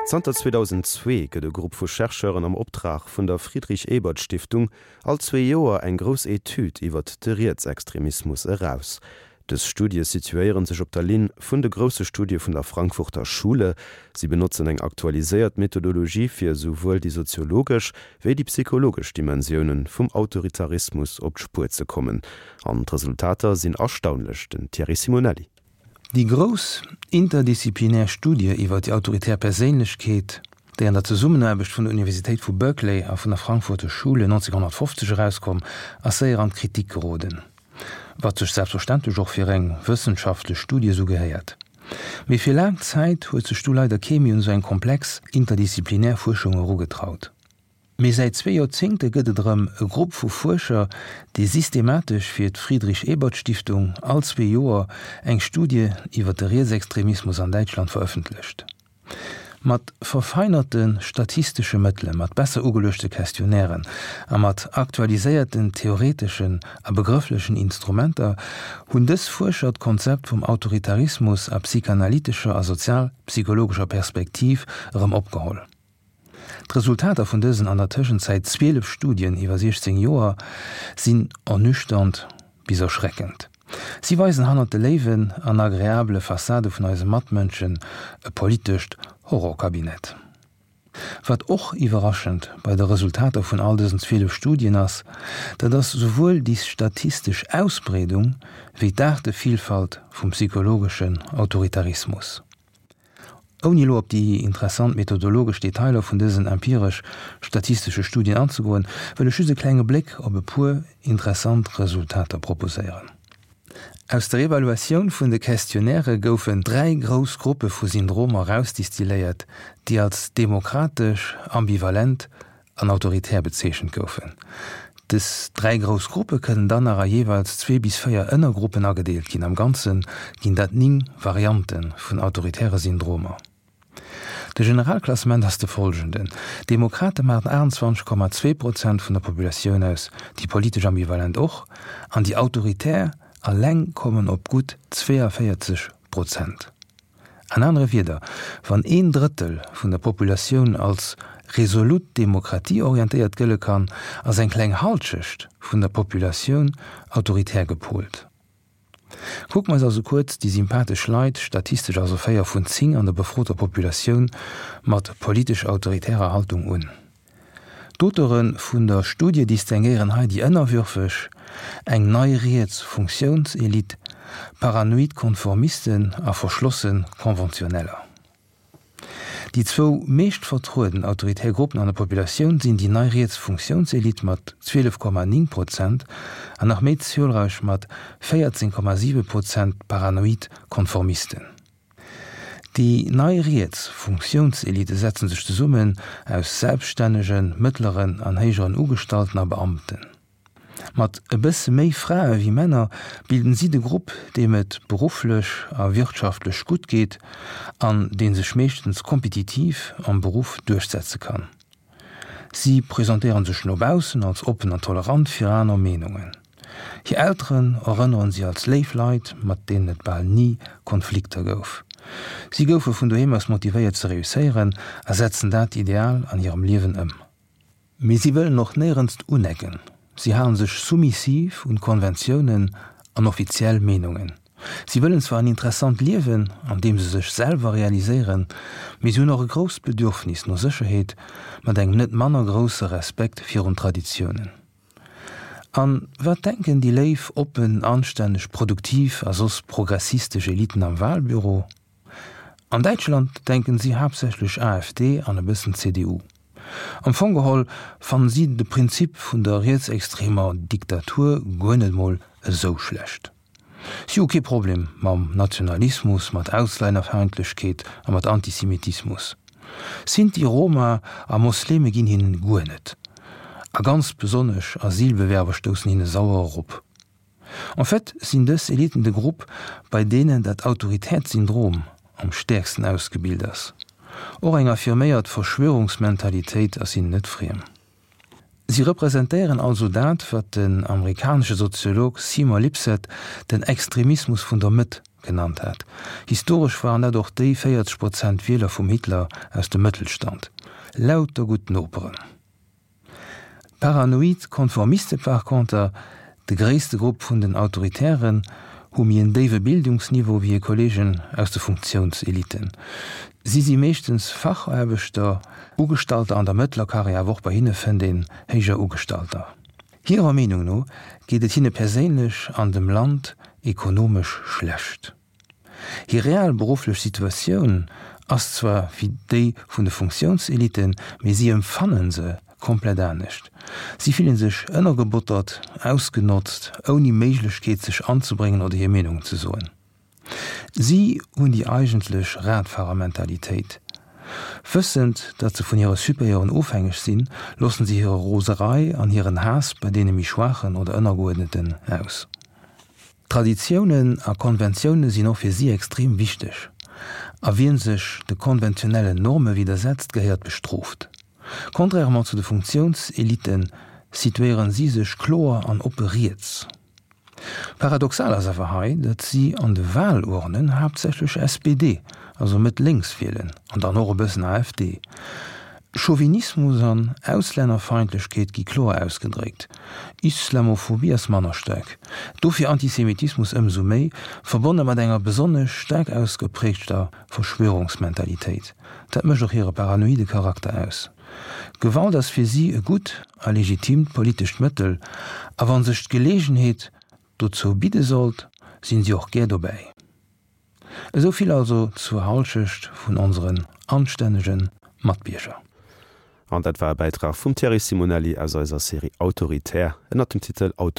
Zanter 2002 gëtt e Grupp vu Chercheuren am Optrag vun der Friedrich-Ebert-Stiftung all zwee Joer eng grouss Etüd iwwert de Rietsextremismus eraus. Dës Studie situéiere sech op der Linn vun de grousse Studie vun der Frankfurter Schule. Si benotzen eng aktualiséiert Methodologie fir esouwuel déi soziologesch wéi déi psychologesch Dimensioune vum Autoritarismus op d'Spuer ze kommen. An d'Resultater sinn erstaunlech. Den Thierry Simonelli. Déi grouss interdisziplinär Studie iwwer déi autoritär Perséinlechkeet, déi an der Zesummenaarbecht vun der Universitéit vu Berkeley a vun der Frankfurter Schule 1950 erauskomm, ass séier an d'Kritik geroden, wat sech selbstverständlech och fir eng wëssenschaftlech Studie esou gehéiert. Mee fir laang Zäit huet sech du leider kee méi un esou eng komplex interdisziplinär Fuerschung erugetraut. Mee säit zwee Joerzéngte gëtt et erëm e Grupp vu Fuerscher, dee systematesch fir d'Friedrich-Ebert-Stiftung all zwee Joer eng Studie iwwer de Rietsextremismus an Däitschland verëffentlecht. Mat verfeinerte statistesche Mëttele, mat besser ugeluechte Questionnairen a mat aktualiséierten theoreteschen a begrëfflechen Instrumenter hunn dës Fuerscher d'Konzept vum Autoritarismus a psychanalytescher a sozialpsychologescher Perspektiv erëm opgeholl. D'Resultater vun dësen an der Tëschenzäit 12 Studien iwwer 16 Joer sinn ernüchternd bis erschreckend. Si weisen hannert de léiwen an agreabele Fassade vun eise Matmënschen e politescht Horrorkabinett. Wat och iwwerraschend bei de Resultater vun all dësen 12 Studien ass, dat ass souwuel déi statistesch Ausbreedung wéi d'Aartevillfalt vum psychologeschen Autoritarismus. Ouni elo op déi interessant methodologesch Detailer vun dësen empiresch-statistesche Studien anzegoen, wëll ech just e klenge Bléck op e puer interessant Resultater proposéieren. Aus der Evaluatioun vun de Questionnairë goufen dräi grouss Gruppe vu Syndromer erausdistilléiert, déi als demokratesch, ambivalent an autoritär bezeechent goufen. Dës dräi grouss Gruppe kënnen dann nach a jeeweils zwee bis véier Ënnergruppen agedeelt ginn. Am Ganze ginn dat 9 Variante vun autoritäre Syndromer. De Generalklassement ass de follgenden, D'Demokrate maachen 28,2 Prozent vun der Populatioun aus, déi politesch Ambivalent och, an déi Autoritär eleng kommen op gutt 42 Prozent. An anere Wieder, wann een Drëttel vun der Populatioun als resolut demokratieorientéiert gëlle kann, ass eng kleng Halschecht vun der Populatioun autoritär gepolt. Kucke mer eis also kuerz déi sympathesch Leit, statistesch also 4 vun 10 an der befroter Populatioun, mat politesch autoritärer Haltung un. D'Auteure vun der Studie distinguéieren hei déi ënnerwürfeg, eng nei riets Funktiounselite, paranoid Konformisten a verschlosse Konventioneller. Déi zwou meescht vertrueden autoritär Gruppen an der Populatioun sinn déi nei riets Funktiounselite mat 12,9 Prozent an nach méi zuelräich mat 14,7 Prozent d'paranoid Konformisten. Déi nei riets Funktiounselite setzen sech zesummen aus selbststännegen, mëttleren an héijeren Ugestallten a Beamten. Mat e bësse méi Frae wéi Männer bilden si de Grupp, deem et berufflech a wirtschaftlech gutt geet an dee sech meeschtens kompetitiv am Beruff duerchsetze kann. Si presentéiere sech no baussen als oppen an tolerant fir aner Meenungen. Hir Elteren erënneren si als léif Leit, mat deenen et bal ni Konflikter gouf. Si goufe vun doheem aus motivéiert ze reusséieren a setzen dat Ideal an hirem Liewen ëm. Mee si wëllen och néierens unecken. Si halen sech soumissiv un Konventiounen an offiziell Meenungen. Si wëllen zwar en interessant Liewen, an deem se sech selwer realiséieren, mee si hunn och e grousst Bedürfnis no Sécherheet, mat engem net manner grousse Respekt virun Traditiounen. An wat denken déi léif, oppen, anstänneg, produktiv a soss progressistesch Eliten am Wahlbüro? An Däitschland denken si haaptsächlech AfD an e bëssen CDU. Am Fong geholl fannen si de Prinzip vun der rietsextremer Diktatur guer net mol esou schlecht. Si hu kee Problem mam Nationalismus, mat Auslännerfeindlechkeet a mat Antisemitismus. Sinti, Roma a Mosleme ginn hinnen guer net. A ganz besonnesch Asylbewerber stoussen hinne sauer erop. En fait sinn dës Eliten de Grupp, bei deenen dat autoritäert Syndrom am stäerksten ausgebilt ass. Och eng affirméiert Verschwörungsmentalitéit ass hinnen net friem. Si representéieren also dat, wat den amerikanesche Soziolog Seymour Lipset den Extremismus vun der Mëtt genannt huet. genannt hat. Historesch waren dat och déi 40 Prozent Wieler vum Hitler aus dem Mëttelstand. Lauter gutt Noperen. D'paranoid Konformiste par conter, de gréisste Grupp vun den Autoritären, hu méi en déiwe Bildungsniveau wéi hir Kolleegen aus de Funktiounseliten. Si si meeschtens Fachaarbechter, Ugestalter an der mëttler Karriär, awer och bei hinne fënnt een héijer Ugestalter. Hirer Meenung no geet et hinne perséinlech an dem Land ekonomesch schlecht. Hir real berufflech Situatioun ass zwar wéi déi vun de Funktiounseliten, mee si empfanne se komplett anescht. Si fillen sech ënnergebottert, ausgenotzt, ouni Méiglechkeet sech anzebréngen oder hir Meenung ze soen. Si hunn déi eigentlech Radfahrermentalitéit. Wëssend, datt se vun hire Supérieuren ofhängeg sinn, loossen si hire Roserei an hiren Haass bei deene méi Schwaachen oder Ënnergeuerdneten aus. Traditiounen a Konventioune sinn och fir si extrem wichteg, a wien sech de konventionellen Norme widdersetzt, gehéiert bestrooft. Contrairement zu de Funktiounselitten situéieren si sech kloer an oppe riets. Paradoxal ass awer hei, datt si an de Wahlurnen haaptsächlech SPD, also Mëtt-Lénks wielen, an dann och e bëssen AfD. Chauvinismus an Auslännerfeindlechkeet gi kloer ausgedréckt. Islamophobie ass manner staark, dofir Antisemitismus ëmsou méi, verbonne mat enger besonnesch staark ausgeprägter Verschwörungsmentalitéit. Dat mécht och hire paranoide Charakter aus. Gewalt ass fir si e gutt a legitimt politescht Mëttel, a wa sech d'Geleegenheet dozou bidde sollt, sinn si och gär dobäi. Esou vill also zur Halschecht vun onseren anstännege Matbierger. An dat war e Bäitrag vum Thierry Simonelli aus eiser Serie Autoritär ënnert dem Titel Auto.